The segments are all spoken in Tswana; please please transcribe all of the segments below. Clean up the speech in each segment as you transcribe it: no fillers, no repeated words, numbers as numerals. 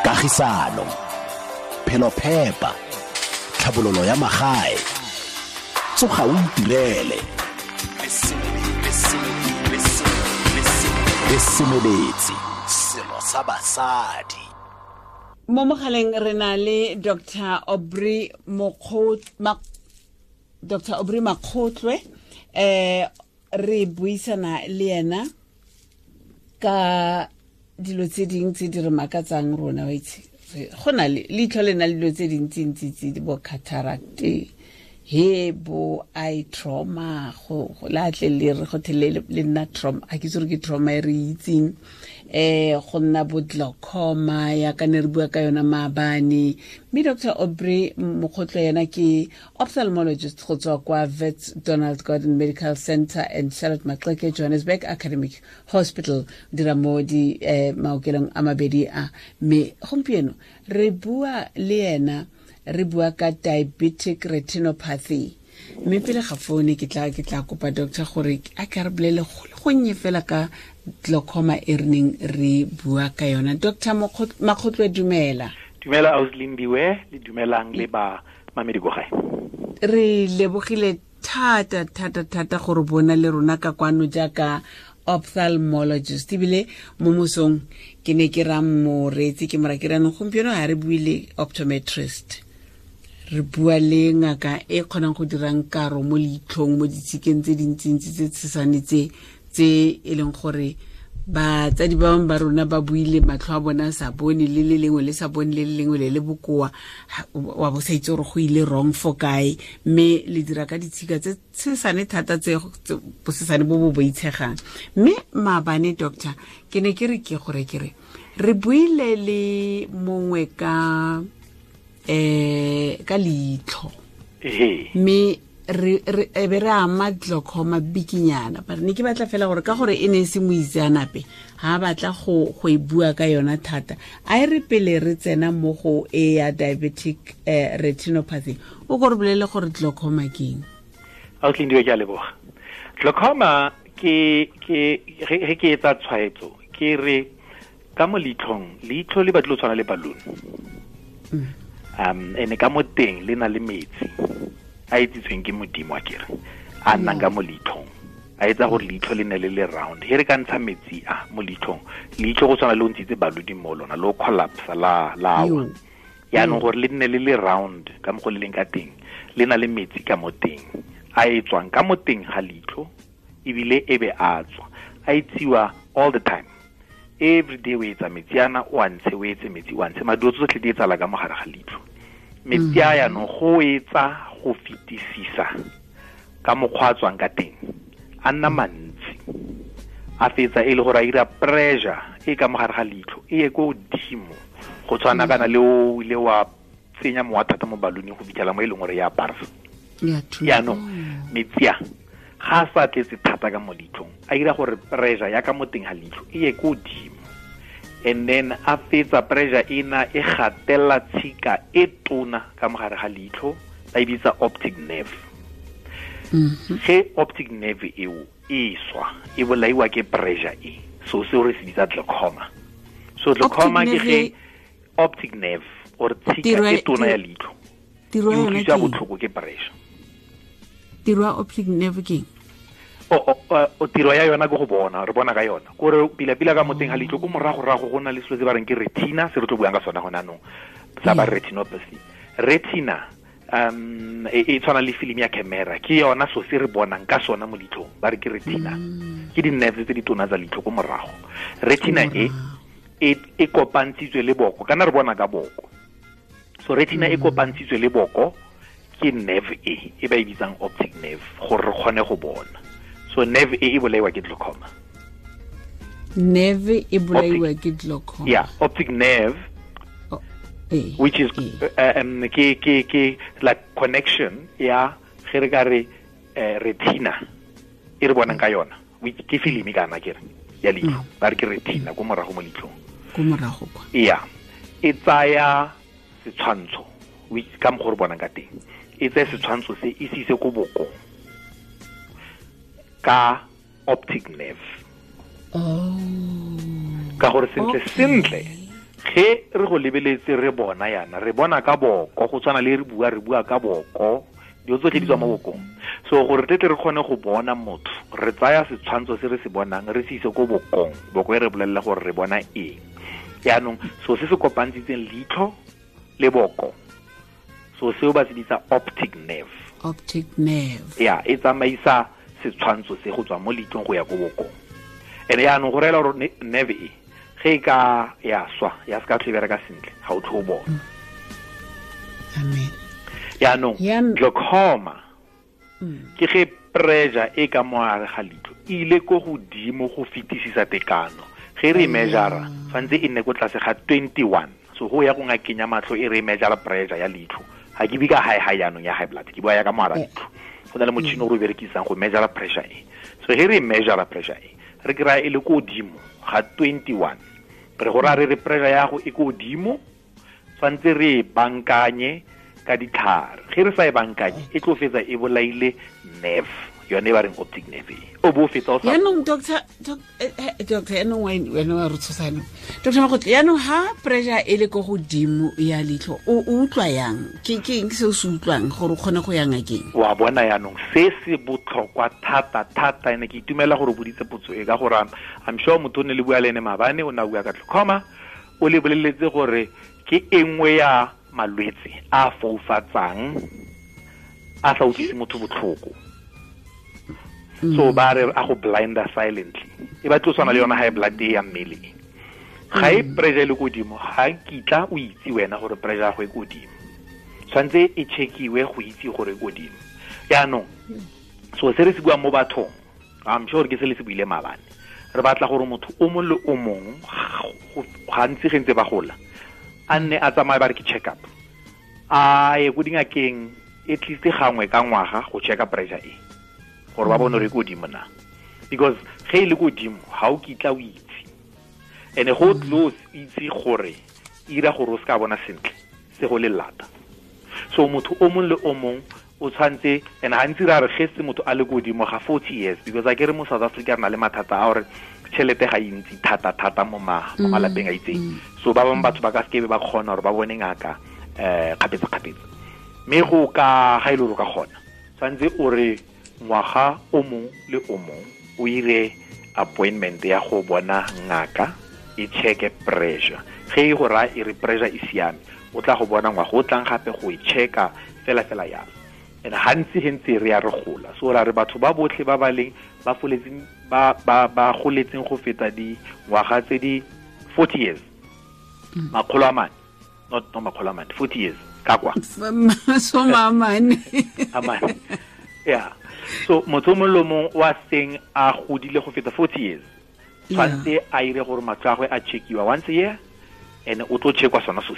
Kagisano, phelo phepa, tlhabololo ya magae. Tsoga o itirele. Re semeletse, selo sa basadi. Mo mogaleng re na le Dr. Aubrey Dr. Aubrey Makgotlwe, re buisana le ena ka dilo tse ding tse di re makatsang rona, wa itse. Go na le leitlho le na le dilo tse dintsintsi tse bo cataract, he bo eye trauma, go la tle le re go thele le nna trauma, a ke tsore ke trauma e re itseng, go nna bo glaucoma ya ka ne re bua ka yona maabane. Mme Dr. Aubrey Mokgotlwe yena ke ophthalmologist go tswa kwa Wits Donald Gordon Medical Center and Charlotte Maxeke Johannesburg Academic Hospital, dira mo di maokelong a mabedi a. Mme gompieno re bua le ena, re bua ka diabetic retinopathy. Mme pele ga foune ke tla kopa doctor gore a ka re bolele go nnye fela ka glaucoma e re neng re bua ka yona. Doctor Makgotlwe, dumela. Dumela Ausi Lindiwe, le dumelang le ba mamedi ko gae. Re lebogile thata thata thata gore bona le rona ka kwano jaaka ophthalmologist. Ebile mo mosong ke ne ke ra moreetsi, ke mora ke re anong gompieno ga re bue le optometrist, re bua le ngaka e kgonang go dirang karo mo leitlhong, mo ditshikeng tse dintsintsi tse tshesane tse e leng gore batsadi ba bangwe ba rona ba buile matlho a bona a sa bone le le lengwe le sa bone le le lengwe le le bokoa, wa bo sa itse gore go ile wrong fo kae. Mme le dira ka ditshika tse tshesane thata, tse bosesane bo bo boitshegang. Mme maabane doctor ke ne ke re ke gore ke re re buile le mongwe ka ka leitlho, mme re be re ama glaucoma bikinyana, but ne ke batla fela gore ka gore e ne e se moitseanape, ha batla go e bua ka yona thata. A e re pele re tsena mo go e ya diabetic retinopathy, o ko re bolele gore glaucoma ke eng? Ausi Lindiwe, ke a leboga. Glaucoma ke ge ke etsa tshwaetso, ke re ka mo leitlhong, leitlho le batle go tshwana le balloon. Ene ka mo teng le na le metsi a etsitsweng ke Modimo, a kere a nnang ka mo leitlhong, a etsa gore leitlho le ne le le round. He re ka ntsha metsi a mo leitlhong, leitlho go tshwana le o ntshitse balloon mo lona, lo collapse la wa. Yaanong gore le nne le le round ka mo go le leng ka teng, le na le metsi ka mo teng a e tswang ka mo teng ga leitlho, ebile e be a tswa a itsiwa all the time. Every day o etsa metsi ana, o a ntshe, o etse metsi, o a ntshe, maduo tsotlhe di etsala ka mogare ga leitlho. Metsi a yaanong go etsa go fetisisa ka mokgwa a tswang ka teng, a nna mantsi, a fetsa e le gore a ira pressure e ka mogare ga leitlho e ye ko godimo, go tshwana kana le o ile wa tsenya mowa thata mo balloon go fitlhela mo e leng gore ya barfa. Yaanong metsi a ga a sa tletse thata ka mo leitlhong, a ira gore pressure ya ka mo teng ga leitlho e ye ko godimo, and then a fetsa pressure ena e gatella tshika e tona ka mogare ga leitlho, ba e bitsa optic nerve. Ge optic nerve eo e swa, e bolaiwa ke pressure e, so seo re se bitsa glaucoma. So glaucoma ke ge optic nerve or tshika e tona ya leitlho e utlwisa botlhoko ke pressure. Tiro ya optic nerve ke o tiro ya yona ke go bona, re bona ka yona kore pila-pila ka mo teng ga leitlho ko morago-rago go na le selo se ba reng ke retina, se re tlo buang ka sona gone anong, sa ba retinopathy. Retina e tshwana le film ya camera, ke yona so se re bonang ka sona mo leitlhong, ba re ke retina. Ke di-nerves tse di tona tsa leitlho ko morago. Retina e e kopantshitswe le boko, kana re bona ka boko. So retina e kopantshitswe le boko ke nerve e e ba e bitsang optic nerve, gore re kgone go bona. So nerve e e bolaiwa ke glaucoma. Nerve e bolaiwa ke glaucoma. Yeah, optic nerve, which is ke like connection ya ge re ka re retina e re bonang ka yona, ke filimi kana ke re ya leitlho, ba re ke retina ko morago mo leitlhong. Ko morago kwa. Yeah, e tsaya setshwantsho ka mokgwa re bonang ka teng, e tsaya setshwantsho se e se ise ko bokong ka optic nerve. Ka gore sentle sentle ge re go lebeletse re bona yana, re bona ka boko, go tshwana le re bua ka boko, dilo tsotlhe di tswa mo bokong. So gore tle re kgone go bona motho, re tsaya setshwantsho se re se bonang re se ise ko bokong, boko e re bolelela gore re bona eng. Yaanong so se se kopantshitseng leitlho le boko, so seo ba se bitsa optic nerve. Optic nerve. Ya, e tsamaisa setshwantsho se go tswa mo leitlhong go ya ko bokong. Ene yaanong go reela gore nerve e ge e ka ya swa, ya se ka tlho e bereka sentle, ga o tlho o bona. Amen. Yaanong glaucoma ke ge pressure e ka mo gare ga leitlho e ile ko godimo go fetisisa tekano. Ge re measure tshwanetse e nne ko tlase ga 21. So go ya go ngakeng ya matlho e re measure pressure ya leitlho. Ga ke bika high high yaanong ya high blood, ke bua ya ka mo gare ga leitlho. Go na le motšhini o re o berekisang go measure pressure e. So ge re measure pressure e, re kry-a e le ko godimo ga 21. Re go raya re re pressure ya go e ko godimo, tshwanetse re e bankanye ka ditlhare. Ge re sa e bankanye, e tlo fetsa e bolaile nerve, yone e ba reng optic nerve e. O bo fetsa o sa Yaanong doctor, doctor yaanong wena wa re tshosa yaanong. Doctor Makgotle, yaanong ha pressure e le ko godimo ya leitlho, o utlwa yang? Ke eng se o se utlwang gore o kgone go ya ngakeng? Wa bona yaanong se se botlhokwa thata thata, ene ke itumela gore o boditse potso e, ka gore I'm sure motho o ne le bua le ene maabane, o ne a bua ka glaucoma, o le boleletse gore ke e nngwe ya malwetse a foufatsang a sa utlwise motho botlhoko. So ba re a go blinda silently. E ba tlo tshwana le yona high blood e ya mmele. Ga e pressure e le godimo, ga kitla o itse wena gore pressure ya go e godimo. Tshwantse e checkiwe go itse gore e godimo. Yaanong so se re se buang mo bathong, I'm sure ke se le se buile maabane. Re batla gore motho o mongwe le o mongwe gantsi ge ntse ba gola, a nne a tsamaye ba re ke check up, a ye ko dingakeng at least gangwe ka ngwaga go checka pressure e, gore ba bone gore e ko godimo na. Because ge e le ko godimo ga o kitla o itse, and go tlo itse gore e dira gore o se ka bona sentle, se go le lata. So motho o mongwe le o mongwe o tshwanetse, and gantsi ra re ge se motho a le ko godimo ga 40 years, because a ke re mo South Africa re na le mathata a gore tšhelete ga e ntsi thata thata mo malapeng a itseng. So ba bangwe batho ba ka seke ba kgona gore ba bone ngaka kgapetsa kgapetsa. Mme go ka ga e le gore o ka kgona, tshwanetse o re ngwaga o mongwe le o mongwe o ire appointment ya go bona ngaka e checke pressure. Ge e go raya e re pressure e siame, o tla go bona ngwaga o tlang gape go e checka fela fela yalo. And gantsi ge ntse re ya re gola, so ra re batho ba botlhe ba ba leng ba foletseng ba ba ba goletseng go feta dingwaga tse di 40 years, makgolo a mane, not no makgolo a mane, 40 years ka kwa some a mane. A mane. Yeah. So motho mongwe le mongwe wa seng a godile go feta 40 years, tshwanetse a ire gore matlho a gagwe a checkiwa once a year, and o tlo checkwa sona so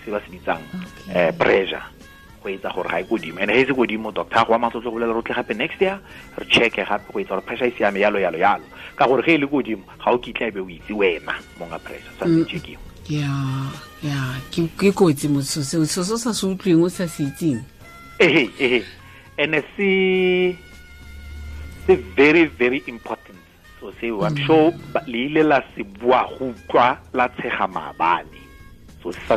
se ba se bitsang pressure, go etsa gore ga e godimo. And ge e se godimo, doctor go wa matlho tlo go bolela rotlhe gape next year re checke gape go etsa gore pressure e siame yalo yalo yalo. Ka gore ge e le godimo ga o kitla e be o itse wena monga pressure, tshwanetse checkiwe. Yeah, ke kotsi motho seo, so se sa se utlweng o sa se itseng. Ehe. And se very very important. So seo I'm sure le ile la se bua go utlwa la tshega maabane. So se sa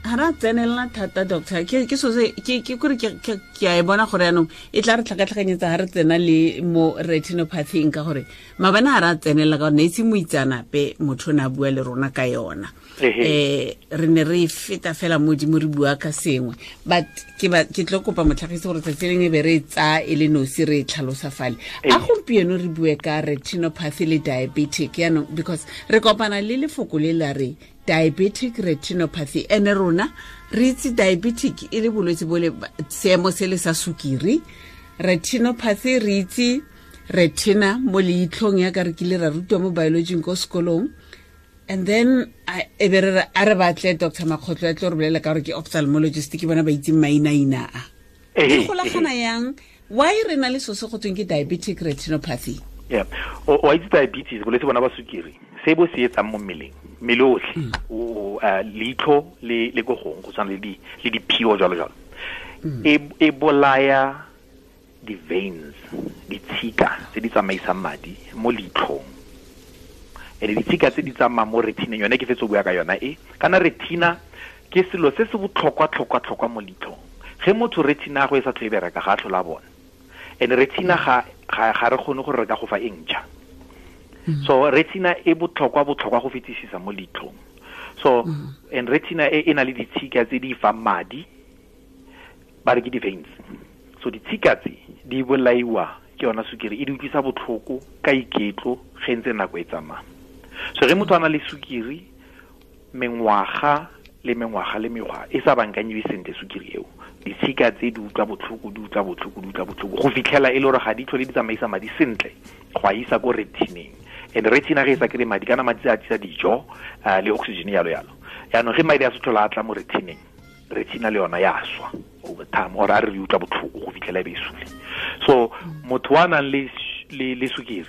Hara tsenela thata doctor, ke so se ke kore ke a e bona gore yanong e tla re tlhakatlhakanyetsa ha re tsena le mo retinopathy, ka gore maabane ha ra tsenela ka gore ne itse moitsanape motho o ne a bua le rona ka yona. Re ne re feta fela modimo re bua ka sengwe, but ke tlo kopa motlhagisi gore tsatsi lengwe e be re e tsaya e le nosi re e tlhalosa fale. A gompieno re bue ka retinopathy le diabetic yaanong, because re kopana le lefoko le la re diabetic retinopathy, ene rona re itse diabetic e le bolwetse bo le seemo se le sa sukiri, retinopathy re itse retina mo leitlhong ya ka re kile ra rutwa mo biology ko sekolong. And then e be re a re batle Dr. Makgotle a tlo re bolela ka gore ke ophthalmologist, ke bona ba itseng mainaina a. E golagana yang? Why re na le so se go tweng ke diabetic retinopathy? Yeah. O itse diabetes, bolwetse bona ba sukiri, se bo se etsang mo mmeleng, mmele otlhe, o leitlho le go gongwe, go tshwana le diphio jalo jalo. E bolaya di-veins, ditshika tse di tsamaisang madi mo leitlhong. And ditshika tse di tsamaya mo retineng yone ke fetse go bua ka yona e kana retina ke selo se se botlhokwa tlhokwa tlhokwa mo leitlhong. Ge motho retina go e sa tlhoe bereka ga a tlhola bona, and retina ga re kgone gore re ka go fa e ntšha. So retina e botlhokwa botlhokwa go fetisisa mo leitlhong. So and retina e na le ditshika tse di fang madi, ba re ke di-veins. So ditshika tse di bolaiwa ke yona sukiri, e di utlwisa botlhoko ka iketlo ge ntse nako e tsamaya. So ge motho a na le sukiri mengwaga le mengwaga le mengwaga e sa bankanyiwe sentle sukiri eo, ditshika tse di utlwa botlhoko, di utlwa botlhoko, di utlwa botlhoko go fitlhela e le gore ga di tlhole di tsamaisa madi sentle go a isa ko retineng. And retina ge e sa kry madi, kana madi a tlisa dijo le oxygen yalo yalo. Yaanong ge madi a se tlhola a tla mo retineng, retina le yona ya swa over time, or a re utlwa botlhoko go fitlhela e be e sule. So motho wa nang le sukiri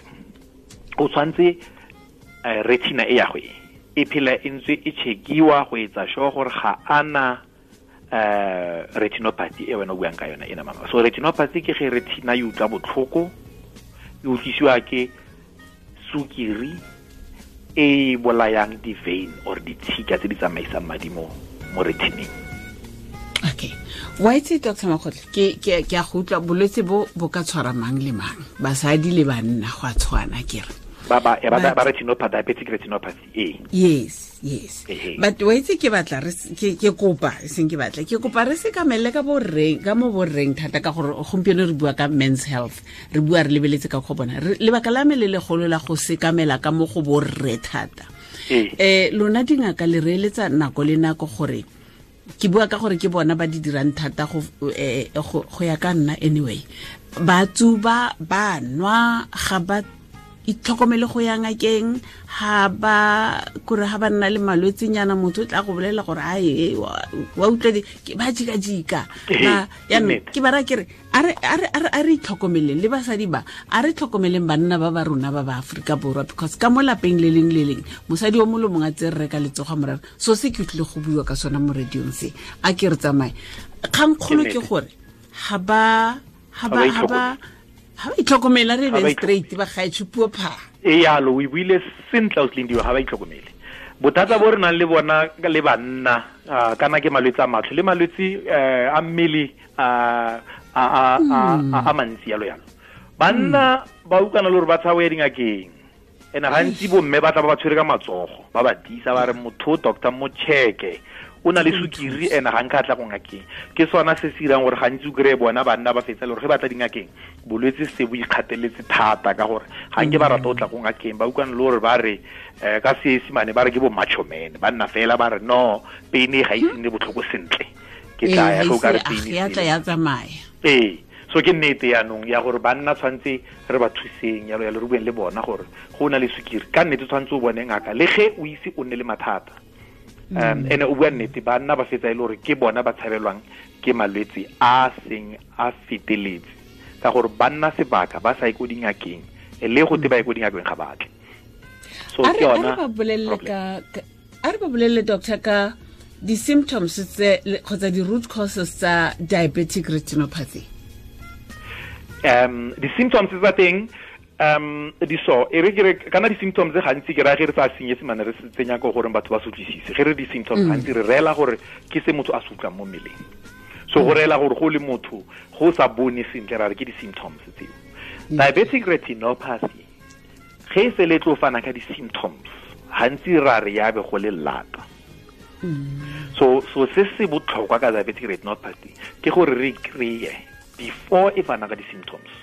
o tshwanetse retina e ya go e phela e ntse e chekiwa go etsa sure gore ga ana retinopathy e wena o buang ka yona ena mama. So retinopathy ke ge retina e utlwa botlhoko, e utlwisiwa ke sukiri e bolayang di-vein or ditshika tse di tsamaisang madi mo retineng. Okay. Wa itse Dr. Makgotle, ke a go utlwa bolwetse bo bo ka tshwara mang le mang, basadi le banna go a tshwana ke re. Ba retinopathy, diabetic retinopathy. Yes, yes. But wa itse ke batla ke kopa, seng ke batla, ke kopa re se kamelle ka borreng, ka mo borreng thata ka gore gompieno re bua ka men's health, re bua re lebeletse ka go bona. Lebaka la me le legolo la go sekamela ka mo go borre thata. Lona dingaka le reeletsa nako le nako gore ke bua ka gore ke bona ba di dirang thata go ya ka nna anyway. Ba tsuba, ba nwa, ga ba itlhokomele go ya ngakeng, ha ba kore ha ba nna le malwetsenyana motho o tla go bolela gore ai wa utlwa ke ba jika-jika. Yaanong ke ba raya ke re a re itlhokomeleng le basadi ba, a re tlhokomeleng banna ba ba rona ba ba Aforika Borwa, because ka mo lapeng le leng le leng mosadi o mongwe le mongwe a tsere reka letsogo morare. So se ke utlwile go buiwa ka sona mo radiong se, a ke re tsamaye. Kgangkgolo ke gore ha ba itlhokomela re be straight ba gaetsho puo pha. E yalo o buile sentle o Lindiwe, ha ba itlhokomele. Bothata bo re nang le bona le banna kana ke malwetse a matlho le malwetse a mmele a mantsi yalo yalo. Banna ba utlwana le gore ba tshaba ya dingakeng, ene gantsi bomme ba tla ba ba tshwere ka matsogo, ba ba tisa ba re motho doctor mo cheke o na le sukiri ene ga nka tla go ngakeng. Ke sona se se irang gore gantsi o kry-e bona banna ba fetsa le gore ge ba tla dingakeng bolwetse se bo ikgateletse thata, ka gore ga nke ba rata o tla go ngakeng ba utlwana le gore ba re ka Seesimane ba re ke bo macho man, ba nna fela ba re no pain e ga e sene botlhoko sentle, ke tla ya go ka re pain ya tla ya tsamaya. Ee, so ke nnete yaanong ya gore banna tshwanetse re ba thuseng yalo yalo, re bueng le bona gore go na le sukiri ka nnete tshwanetse o bone ngaka le ge o ise o nne le mathata. Ene o bua nnete, banna ba fetsa e le gore ke bona ba tshabelwang ke malwetse a seng a feteletse, ka gore banna sebaka ba sa ye ko dingakeng, le go te ba ye ko dingakeng ga batle. So ke yona a re ba bolelele doctor ka di-symptoms tse kgotsa di-root causes tsa diabetic retinopathy. Di-symptoms tsa teng di so e re ke re kana di-symptoms gantsi ke raya ge re sa Senyesemane re se tsenya ko gore batho ba se utlwisise. Ge re di-symptoms gantsi re reela gore ke se motho a se utlwang mo mmeleng. So go reela gore go le motho go sa bone sentle ra re ke di-symptoms tseo. Diabetic retinopathy ge e se le tlo fana ka di-symptoms gantsi ra re ya be go le lata. So se se botlhokwa ka diabetic retinopathy ke gore re kry-e before e fana ka di-symptoms.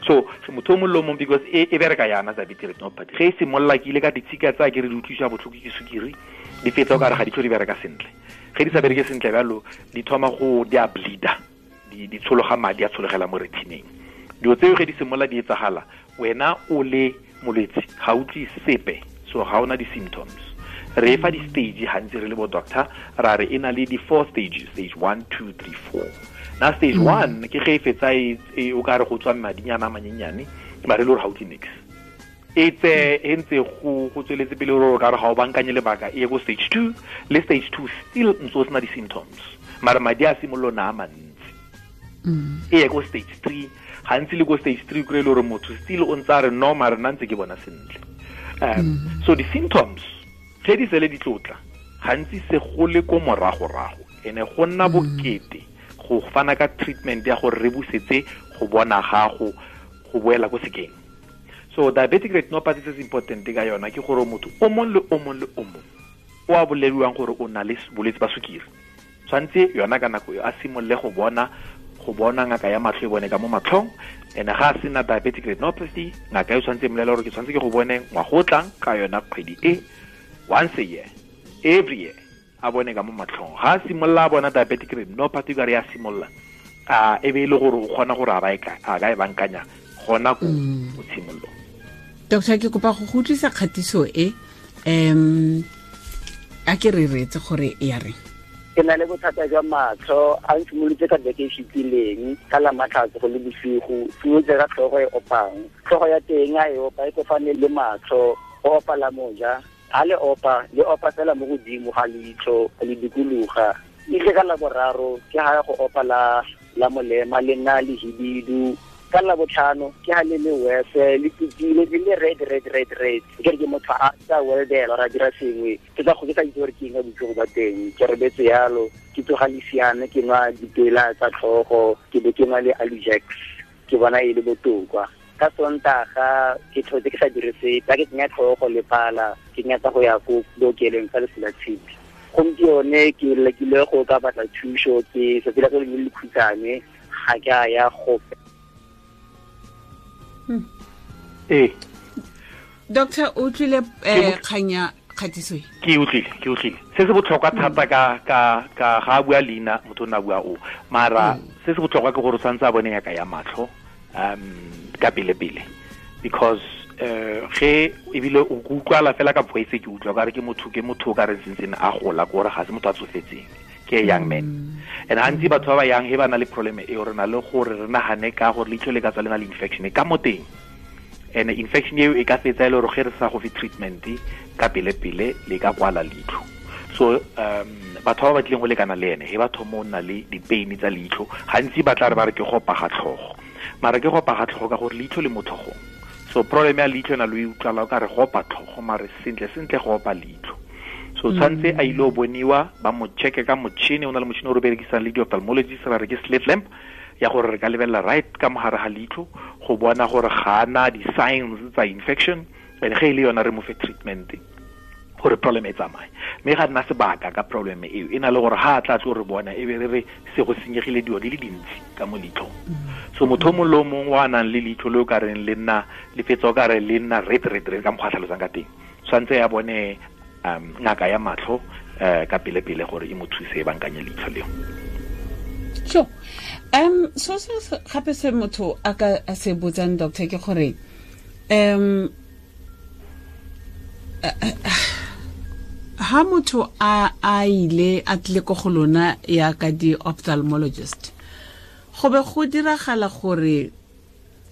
So motho o mongwe le mongwe, because e bereka yana diabetic retinopathy ge e simolola ke ile ka ditshika tsa ke re di utlwisa botlhoko ke sukiri, di fetsa o ka re ga di tlhole di bereka sentle. Ge di sa bereke sentle jalo di thoma go di a bleeder, di tshologa madi a tshologela mo retineng. Dilo tseo ge di simolola di etsagala, wena o le molwetse ga utlwe sepe, so ga ona di-symptoms. Re fa di-stage gantsi re le bo doctor ra re e na le di-4 stages, stage 1, 2, 3, 4. Na stage 1 ke ge e fetsa o ka re go tswa madinyana a manyenyane, mare le gore ga utlwe nix. E tse e ntse go tsweletse pele gore o ka re ga o bankanye lebaka, e ye ko stage 2, le stage 2 still ntse o sena di-symptoms, mare madi a simolola a mantsi. E ye ko stage 3, gantsi le ko stage 3 kry le gore motho still o ntse a re no mare nna ntse ke bona sentle. So the symptoms ge di sele di tlotla gantsi se gole ko moragorago ene go nna bokete go fana ka treatment ya gore re busetse go bona gago go boela ko sekeng. So diabetic retinopathy se se important ka yona ke gore motho o mongwe le o mongwe le o mongwe o a bolediwang gore o na le bolwetse ba sukiri tshwanetse yona ka nako eo a simolole go bona ngaka ya matlho e bone ka mo matlhong. Ene ga a sena diabetic retinopathy, ngaka e tshwanetse e mmolelela gore ke tshwanetse ke go bone ngwagotlang ka yona kgwedi e, once a year, every year, a bone ka mo matlhong. Ga a simolola a bona diabetic retinopathy ka re ya simolola, a e be e le gore o kgona gore a ka e bankanya gona ko tshimolong. Doctor, ke kopa go utlwisa kgatiso e, a ke re reetse gore e ya reng. Ke na le bothata jwa matlho a ntshimolotse ka beke e fetileng ka la matlhatso go le bosigo, simolotse ka tlhogo e opang. Tlhogo ya teng a e opa e kopane le matlho, go opa la moja, a le opa, le opa fela mo godimo ga leitlho, le dikologa. Ile ka la boraro ke ha go opa la molema le nna le hibidu. Ka la botlhano ke ha le le wese le pitile le red red red red. Ke re ke motho a tsa weldela ra dira sengwe ke tsa go ke sa itse gore ke eng ka botsogo ba teng. Ke robetse yalo, ke tsoga le siame, ke nwa dipela tsa tlhogo, ke be ke nwa le Alujax, ke bona e le botoka. Ka Sontaga ke tlhotse ke sa dire sepe, ke tsenya tlhogo le pala, ke nyatsa go ya ko bookelong fa Lesela Tshipi. Gompieno ke lekile go ka batla thuso, ke tsatsi la ka le le khutshwane, ga ke a ya gope. Ee. Doctor, o utlwile kganya kgatiso e? Ke utlwile. Se se botlhokwa thata ka ga a bua leina, motho o nna bua o. Mara se se botlhokwa ke gore o tshwanetse a bone ngaka ya matlho ka pele-pele, because ge ebile o utlwala fela ka voice ke utlwa ka re ke motho o ka re sentseng a gola, ke gore ga se motho a tsofetseng, ke a young man. And gantsi batho ba ba yang he ba na le problem e re na le gore re nagane ka gore leitlho le ka tswa le na le infection ka mo teng. And infection eo e ka fetsa e le gore ge re sa go fe treatment ka pele-pele le ka kwala leitlho. So batho ba ba batlileng go lekana le ene he ba thoma o nna le di-pain tsa leitlho, gantsi ba tla re ba re ke go opa ga tlhogo, mara ke go opa ga tlhogo ka gore leitlho le mo tlhogong. So problem ya leitlho ena lo e utlwala o ka re go opa tlhogo, mare sentle sentle go opa leitlho. So tshwanetse a ile o boniwa, ba mo checke ka motšhini, o na le motšhini o re berekisang le di-ophthalmologist, ra re ke slit lamp, ya gore re ka lebelela right ka mogare ga leitlho go bona gore ga ana di-signs tsa infection, and ge e le yona re mo fe treatment gore problem e tsamaye. Mme ga nna sebaka ka problem eo, e na le gore ha a tla tlo re bona e be re re se go senyegile dilo di le dintsi ka mo leitlhong. So motho o mongwe le o mongwe wa nang le leitlho le o ka reng le nna le fetsa o ka re le nna red red red ka mokgwa a tlhalosang ka teng, tshwanetse ya bone ngaka ya matlho ka pele-pele gore e mo thuse e bankanye leitlho leo. Sure. So se gape se motho a ka a se botsang doctor ke gore ha motho a ile a tle ko go lona ya ka di ophthalmologist, go be go diragala gore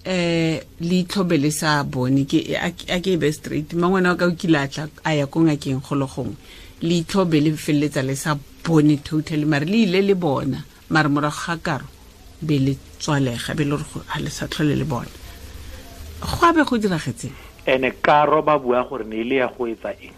leitlho be le sa bone, ke a ke be straight, mangwana ka o kile a tla a ya ko ngakeng go le gongwe, leitlho be le feleletsa le sa bone totally, mare le ile le bona, mare morago ga karo be le tswalega, be le gore ga le sa tlhole le bona. Go a be go diragetseng? Ene karo ba bua gore ne ile ya go etsa eng?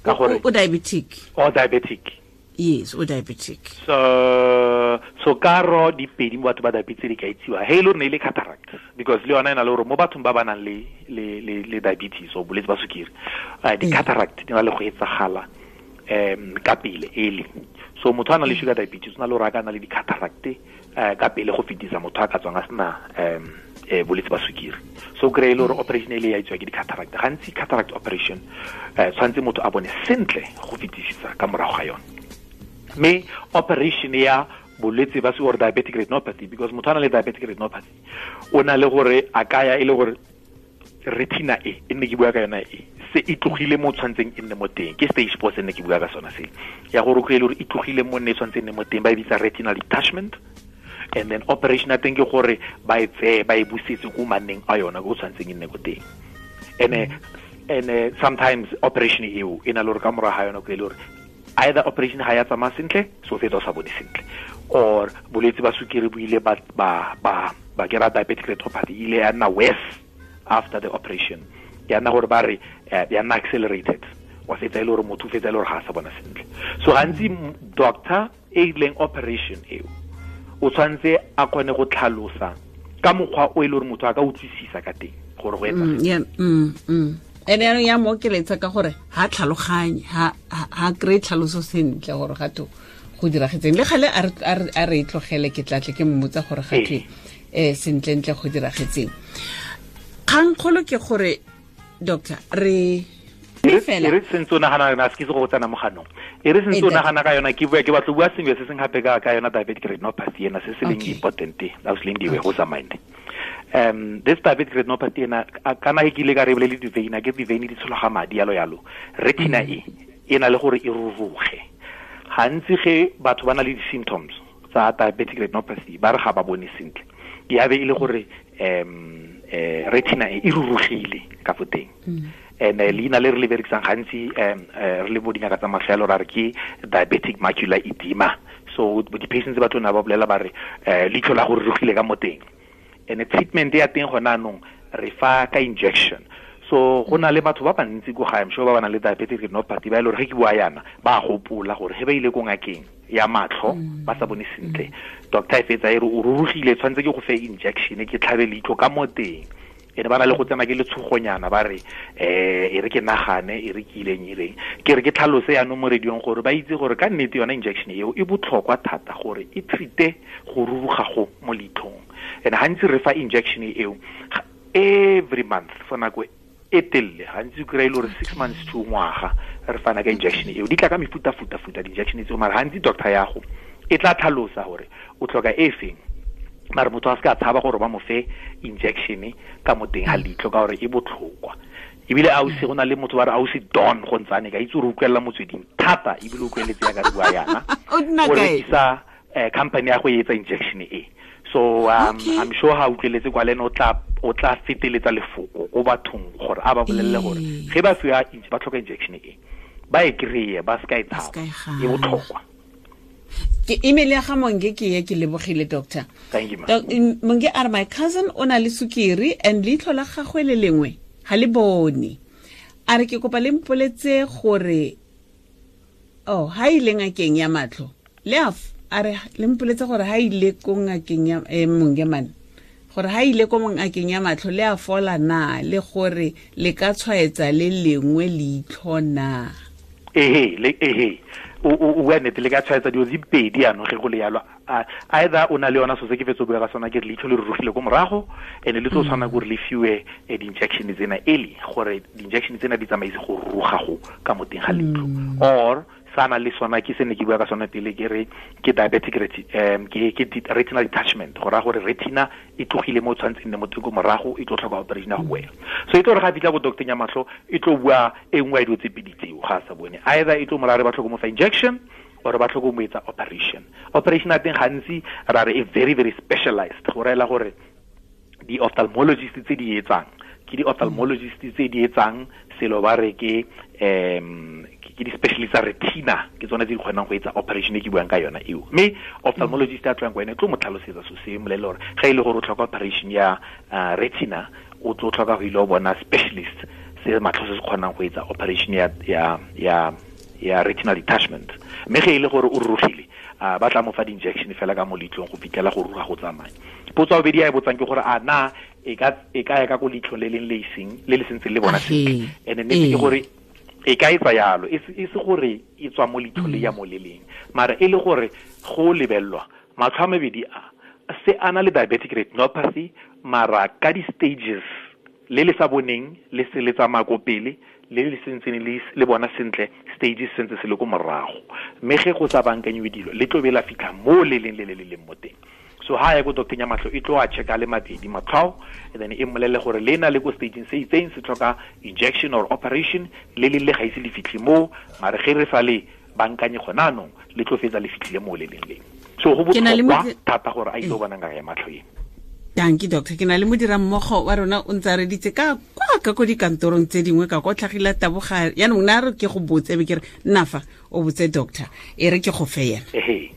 Ka gore o diabetic. O diabetic. Yes, o diabetic. So karo di pedi mo batho ba diabetes di ka itsiwa. He le ne ile cataract, because le yona ena le gore mo bathong ba ba nang le diabetes o bolwetse ba sukiri, di cataract di na le go etsagala ka pele ele. So motho a na le sugar diabetes o na le gore a ka na le di cataract ka pele go fetisa motho a ka tswang a sena bolwetse ba sukiri. So kry-e le gore operation e le ya itswa ke di-cataract. Gantsi cataract operation tshwanetse motho a bone sentle go fetisisa ka morago ga yone. Mme operation ya bolwetse ba or diabetic retinopathy, because motho a na le diabetic retinopathy o na le gore a ka ya e le gore retina e nne ke bua ka yona e se e tlogile mo tshwantseng e nne mo teng, ke stage 4 se nne ke bua ka sona se ya gore o kry-e le gore e tlogile mo nne e tshwantseng e nne mo teng, ba e bitsa retinal detachment. And then operation ya teng ke gore ba e tseye ba e busetse ko manneng a yona ko tshwantseng e nne ko teng. And sometimes operation eo e na le gore ka morago ga yona ko e le gore either operation ga ya tsamaya sentle, so fetsa o sa bone sentle, or bolwetse ba sukiri bo ile ba kry-a diabetic retinopathy ile ya nna worse after the operation. Ya nna gore ba re ya nna accelerated, wa fetsa e le gore motho o fetsa e le gore ga a sa bona sentle. So gantsi doctor e ileng operation eo o tshwanetse a kgone go tlhalosa ka mokgwa o e le gore motho a ka utlwisisa ka teng gore go etsagetse. Ene yaanong ya mo okeletsa ka gore ha tlhaloganye, ha kry-e tlhaloso sentle gore gato go diragetseng. Le gale a re e tlogele, ke tlatle ke mmotsa gore gatwe sentlentle go diragetseng. Kgangkgolo ke gore doctor re e re sentse o nagana, a se ke se go tsena mo ganong, e re sentse o nagana ka yona, ke bua ke batlo bua sengwe se seng gape ka yona diabetic retinopathy ena, se se leng important, a se leng diwe go sa mind. This diabetic retinopathy ena, kana e kile ka re bolele di-vein, ke di-vein di tshologa madi yalo yalo, retina e na le gore e ruruge. Gantsi ge batho ba na le di-symptoms tsa diabetic retinopathy ba re ga ba bone sentle, ya be e le gore retina e rurugile ka fo teng. And leina le re le berekisang gantsi re le bo dingaka tsa matlho yalo ra re ke diabetic macular edema. So di-patients ba tlo nna ba bolela ba re leitlho la go rurugile ka mo teng. And treatment ya teng gona anong re fa ka injection. So go na le batho ba bantsi ko gae, I'm sure ba ba nang le diabetic retinopathy ba e le gore ge ke bua yana ba gopola gore ge ba ile ko ngakeng ya matlho ba sa bone sentle, doctor e fetsa e re o rurugile, tshwanetse ke go fe injection ke tlhabe leitlho ka mo teng. Ene ba na le go tsena ke letshogonyana ba re e re ke nagane, e re ke ileng ireng. Ke re ke tlhalose yaanong mo radiong gore ba itse gore ka nnete yona injection eo e botlhokwa thata gore e treat-e go ruruga go mo leitlhong. And gantsi re fa injection eo every month for nako e telele, gantsi o kry-a e le gore 6 months to ngwaga re fana ka injection eo. Di tla ka mefuta-futa-futa di-injection tseo, mara gantsi doctor ya go e tla tlhalosa gore o tlhoka e feng. Mara motho a se ka tshaba gore ba mo fe injection ka mo teng ga leitlho ka gore e botlhokwa. Ebile ausi go na le motho ba re ausi Don go ntsane ka itse gore o utlwelela motsweding thata, ebile o utlweletse ya ka re bua yana. O rekisa company ya go etsa injection e. So I'm sure ha utlweletse kwa le ene o tla feteletsa lefoko ko bathong gore a ba bolelele gore ge ba fiwa ba tlhoka injection e ba e kry-e, ba se ka e tshaba, e botlhokwa. Ke email ya ga Monge ke ye, ke lebogile doctor. Thank you, ma'am. Monge a re my cousin o na le sukiri and leitlho la gagwe le lengwe ga le bone. A re ke kopa le mpoletse gore ha ile ngakeng ya matlho le a re le mpoletse gore ha ile ko ngakeng ya Monge man, gore ha ile ko ngakeng ya matlho le a fola na, le gore le ka tshwaetsa le lengwe leitlho na. Ehe, le ehe. O bua nnete, le ka tshwaetsa dilo di pedi yanong ge go le yalo. Either o na le yona so se ke fetsa go bua ka sona, ke re leitlho le rurugile ko morago, and le tlo tshwana gore le fiwe di-injection tsena early, gore di-injection tsena di tsamaise go ruruga go ka mo teng ga leitlho. Or sana le sona ke se ne ke bua ka sona pele, ke re ke diabetic ke retinal detachment, go raya gore retina e tlogile mo tshwantseng ne mo teng ko morago, e tlo tlhoka operation ya go boela. So e tlo re ga fitlha ko doctor ya matlho, e tlo bua e nngwe ya dilo tse pedi tseo ga a sa bone. Either e tlo mo raya re ba tlhoka mo fa injection or ba tlhoka mo etsa operation. Operation ya teng gantsi ra re e very very specialized, go raela gore di-ophthalmologist tse di etsang ke di-ophthalmologist tse di etsang selo ba re ke di-specialist tsa retina, ke tsone tse di kgonang go etsa operation e ke buang ka yona eo. Mme ophthalmologist a tloang ko ene tlo mo tlhalosetsa so se molele gore ge e le gore o tlhoka operation ya retina, o tlo tlhoka go ile go bona specialist se matlho se se kgonang go etsa operation ya retinal detachment. Mme ge e le gore o rurugile, ba tla mo fa di-injection fela ka mo leitlhong go fitlhela go ruruga go tsamaya. Potso ya bobedi ya e botsang ke gore a na e ka ya ka ko leitlhong le leng le iseng le le sentseng le bona sentle. And nnete ke gore e ka etsa yalo, e se gore e tswa mo leitlhong le ya mo le leng, mara e le gore go lebellwa matlho a mabedi a se a na le diabetic retinopathy, mara ka di-stages le le sa boneng le se le tsamaya ko pele, le le sentseng le bona sentle stages sentse se le ko morago. Mme ge go sa bankanywe dilo le tlo be la fitlha mo le leng le le le leng mo teng. So ha ya ko doctor ya matlho e tlo a checka le mabedi matlho, and then e mmolelle gore le na le ko staging se itseng se tlhoka injection or operation, le le le ga ise le fitlhe mo, mare ge re sa le bankanye gona anong le tlo fetsa le fitlhile mo le leng leng. So go botlhokwa thata gore a ile go bona ngaka ya matlho e. Dankie doctor, ke na le modira mmogo wa rona o ntse a reditse ka kwa ka ko dikantorong tse dingwe ka kwa tlhagile taboga. Yaanong nna re ke go botse, be ke re nna fa o botse doctor, e re ke go fe yena. Ehe.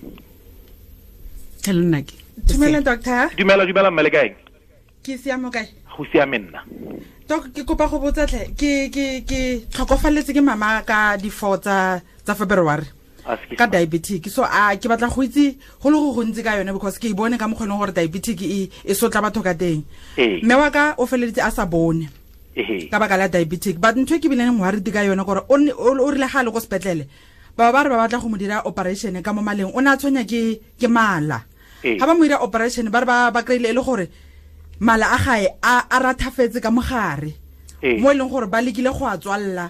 Hello nnake. Dumela doctor. Dumela, dumela mme le kae? Ke siame kae? Go siame nna. Doc, ke kopa go botsa tlhe, ke tlhokofaletse ke mama ka di 4 tsa February. Ka diabetic. So a ke batla go itse go le go gontsi ka yone because ke e bone ka mokgwa gore diabetic e sotla batho ka teng. Mme wa ka o feleditse a sa bone. Ka baka la diabetic. But ntho e ke bileng worried ka yone gore o rile ga le go sepetlele. Ba ba re ba batla go mo dira operation ka mo maleng. O ne a tshwenya ke mala. Ha ba mo dira operation ba re ba kry-ile e le gore mala a gae a rathafetse ka mogare. Mo e leng gore ba lekile go a tswalla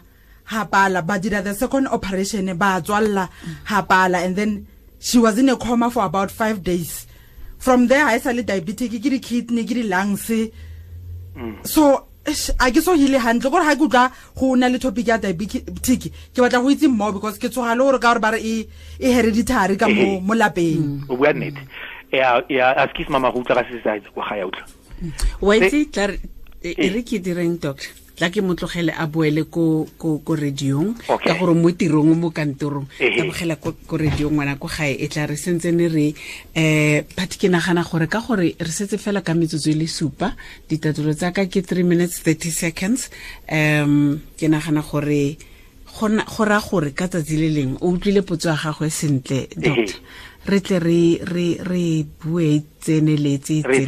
ha pala, ba dira the second operation ba tswalla ha pala, and then she was in a coma for about 5 days. From there ha e sa le diabetic, ke di kidney, ke di lungs. So a ke so hile hantle gore ha ke utlwa go na le topic ya diabetic ke batla go itse more because ke tsoga le gore ka gore ba re e hereditary ka mo lapeng. O bua nnete. Ya askies mama go utlwa ka se sa itse go ga ya utlwa. Wa itse tla e re ke direng doctor, tla ke motlogele a boele ko radiong ka gore mo tirong mo kantorong ka bogela ko radiong ngwana ko gae e tla re sentse ne re but ke nagana gore ka gore re setse fela ka metsotso e le supa, ditatolo tsa ka ke 3 minutes 30 seconds. Ke nagana gore go ra gore ka tsatsi le leng o utlwile potso ya gagwe sentle doctor, re tle re bue tseneletse. Re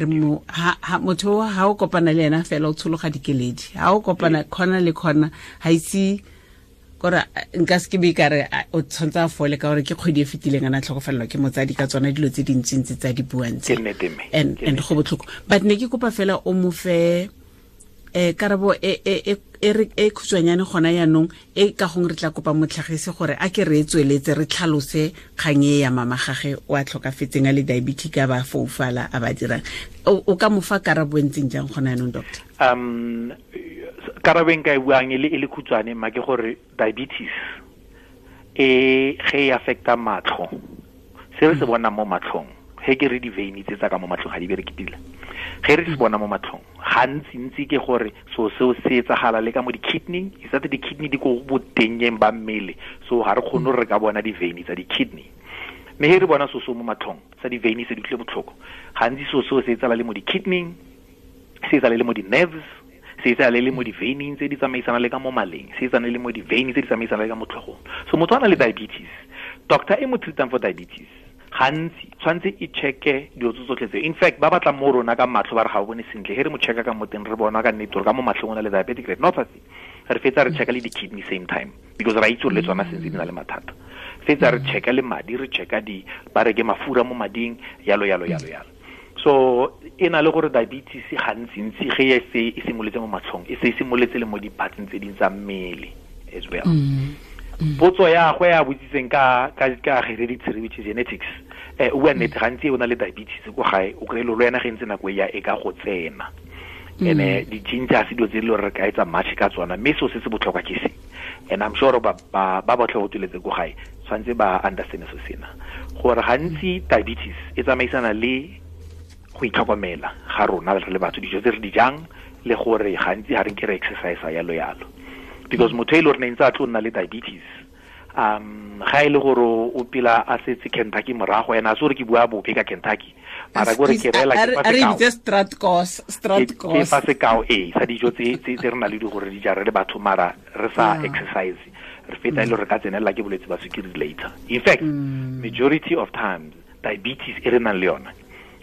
mo ha motho ha o kopana le ena fela o tshologa dikeledi, ha o kopana khona le khona ha itse kora nka se ke be ka re o tshwantse a fole ka gore ke kgwedi e fetileng ana tlhokofelelwa ke motsadi ka tsona dilo tse dintsintsi tsa di buang tse and go botlhoko. But ne ke kopa fela o mo fe karabo e khutshwanyane gona yaanong e ka gongwe re tla kopa motlhagisi gore a ke re e tsweletse re tlhalose kgang e ya mama gage o a tlhokafetseng a le diabetic a ba foufala a ba dirang. O ka mo fa karabo e ntseng jang gona yaanong doctor? Karabo e nka e buang e le khutshwane ma ke gore diabetes e ge e affecta matlho, se re se bona mo matlhong, ge ke re di-vein tse tsa ka mo matlhong ga di bereke pila, ge re se bona mo matlhong gantsi-ntsi ke gore so seo se etsagala le ka mo di-kidney, e sate di-kidney di ko botengeng ba mmele, so ga re kgone gore re ka bona di-vein tsa di-kidney. Mme ge re bona so seo mo matlhong sa di-vein se di utlwile botlhoko, gantsi so seo se etsala le mo di-kidney, se etsala le mo di-nerves, se etsala le mo di-veining tse di tsamaisana le ka mo maleng, se etsana le mo di-vein tse di tsamaisana le ka mo tlhogong. So motho a na le diabetes, doctor e mo treatang for diabetes gantsi tshwantse e checke dilo tse tsotlhe tseo. In fact ba batla mo rona ka matlho ba re ga o bone sentle, he re mo checka ka mo teng re bona ka nnete gore ka mo matlhong o na le diabetic retinopathy. Re fetsa re checka le di-kidney same time because ra itse gore le tsona sentse di na le mathata. Fetsa re checka le madi, re checka di ba re ke mafura mo mading, yalo yalo yalo yalo. So e na le gore diabetes gantsi-ntsi ge e se e simoletse mo matlhong, e se e simoletse le mo diphatseng tse ding tsa mmele as well. Potso ya gwe ya botsitseng ka hereditary, which is genetics, o bua nnete gantsi o na le diabetes ko gae o kry-e lolo ena ge ntse nako e ya e ka go tsena. Ene di-gene tse ga se dilo tse e le gore re ka etsa match ka tsona, mme seo se se botlhokwa ke se. And I'm sure ba botlhe go tsweletse ko gae tshwanetse ba understand so sena gore gantsi diabetes e tsamaisana le go itlhokomela ga rona re le batho, dijo tse re di jang, le gore gantsi ga re nke re exercise yalo yalo. Because motho e le gore ne ntse a tlo nna le diabetes, ga e le gore o pila a setse Kentucky morago, ena a se gore ke bua bope ka Kentucky, mara gore ke reela ke fa sekao e sa dijo tse re na le di gore di ja re le batho mara re sa exercise, re feta e le gore re ka tsenela ke bolwetse ba sukiri later. In fact, majority of times diabetes e re nang le yona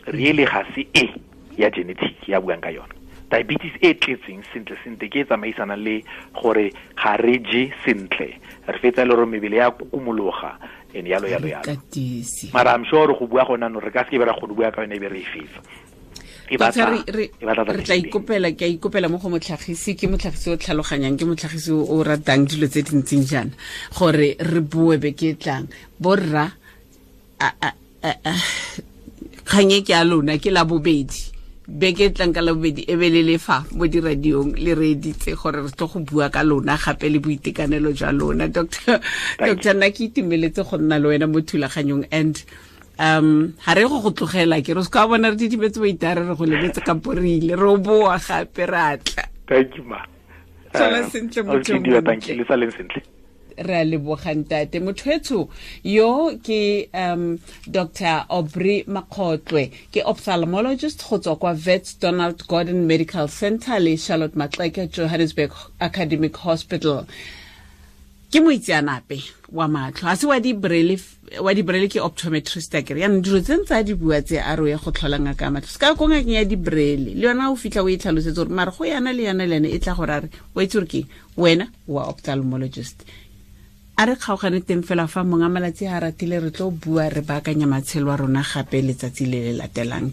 really ga se e ya genetic ya buang ka yona. Diabetes e tletseng sentle sentle ke e tsamaisana le gore ga re je sentle, re fetsa le gore mebele ya kukumologa and yalo yalo yalo. Mara I'm sure go bua gona no re ka se ke be ra go bua ka yone e be re e fetsa. Re tla ikopela, ke a ikopela mo go motlhagisi, ke motlhagisi o tlhaloganyang, ke motlhagisi o ratang dilo tse dintseng jaana gore re bue be ke tlang borra kgang e ke a lona ke la bobedi beke tlang ka la bobedi e be le lefa mo diradiong le reeditse gore re tlo go bua ka lona gape le boitekanelo jwa lona. Doctor nna ke itumeletse go nna le wena mo thulaganyong and ha re go tlogela ke re se ka bona re didimetse boitare re go lebetse kampo re ile re o boa gape re atla. Thank you ma. Tsala sentle motho. Thank you, le saleng sentle. Re a leboga ntate. Motho yo ke Dr. Aubrey Makgotlwe, ke ophthalmologist go tswa kwa Vets Donald Gordon Medical Center le Charlotte Maxeke Johannesburg Academic Hospital. Ke moitseanape wa matlho, a se wa dibrele, wa dibrele ke optometrist akere. Yaanong dilo tse ntse a di bua tse, a re o ye go tlhola ngaka ya matlho, se ka ko ngakeng ya dibrele le yona o fitlha o e tlhalosetse gore mare go yana le yana le yane e tla gore a re o itse gore ke wena wa ophthalmologist. A re kgaogane teng fela fa monga malatsi a ratile, re tlo bua re baakanya matshelo a rona gape letsatsi le le latelang.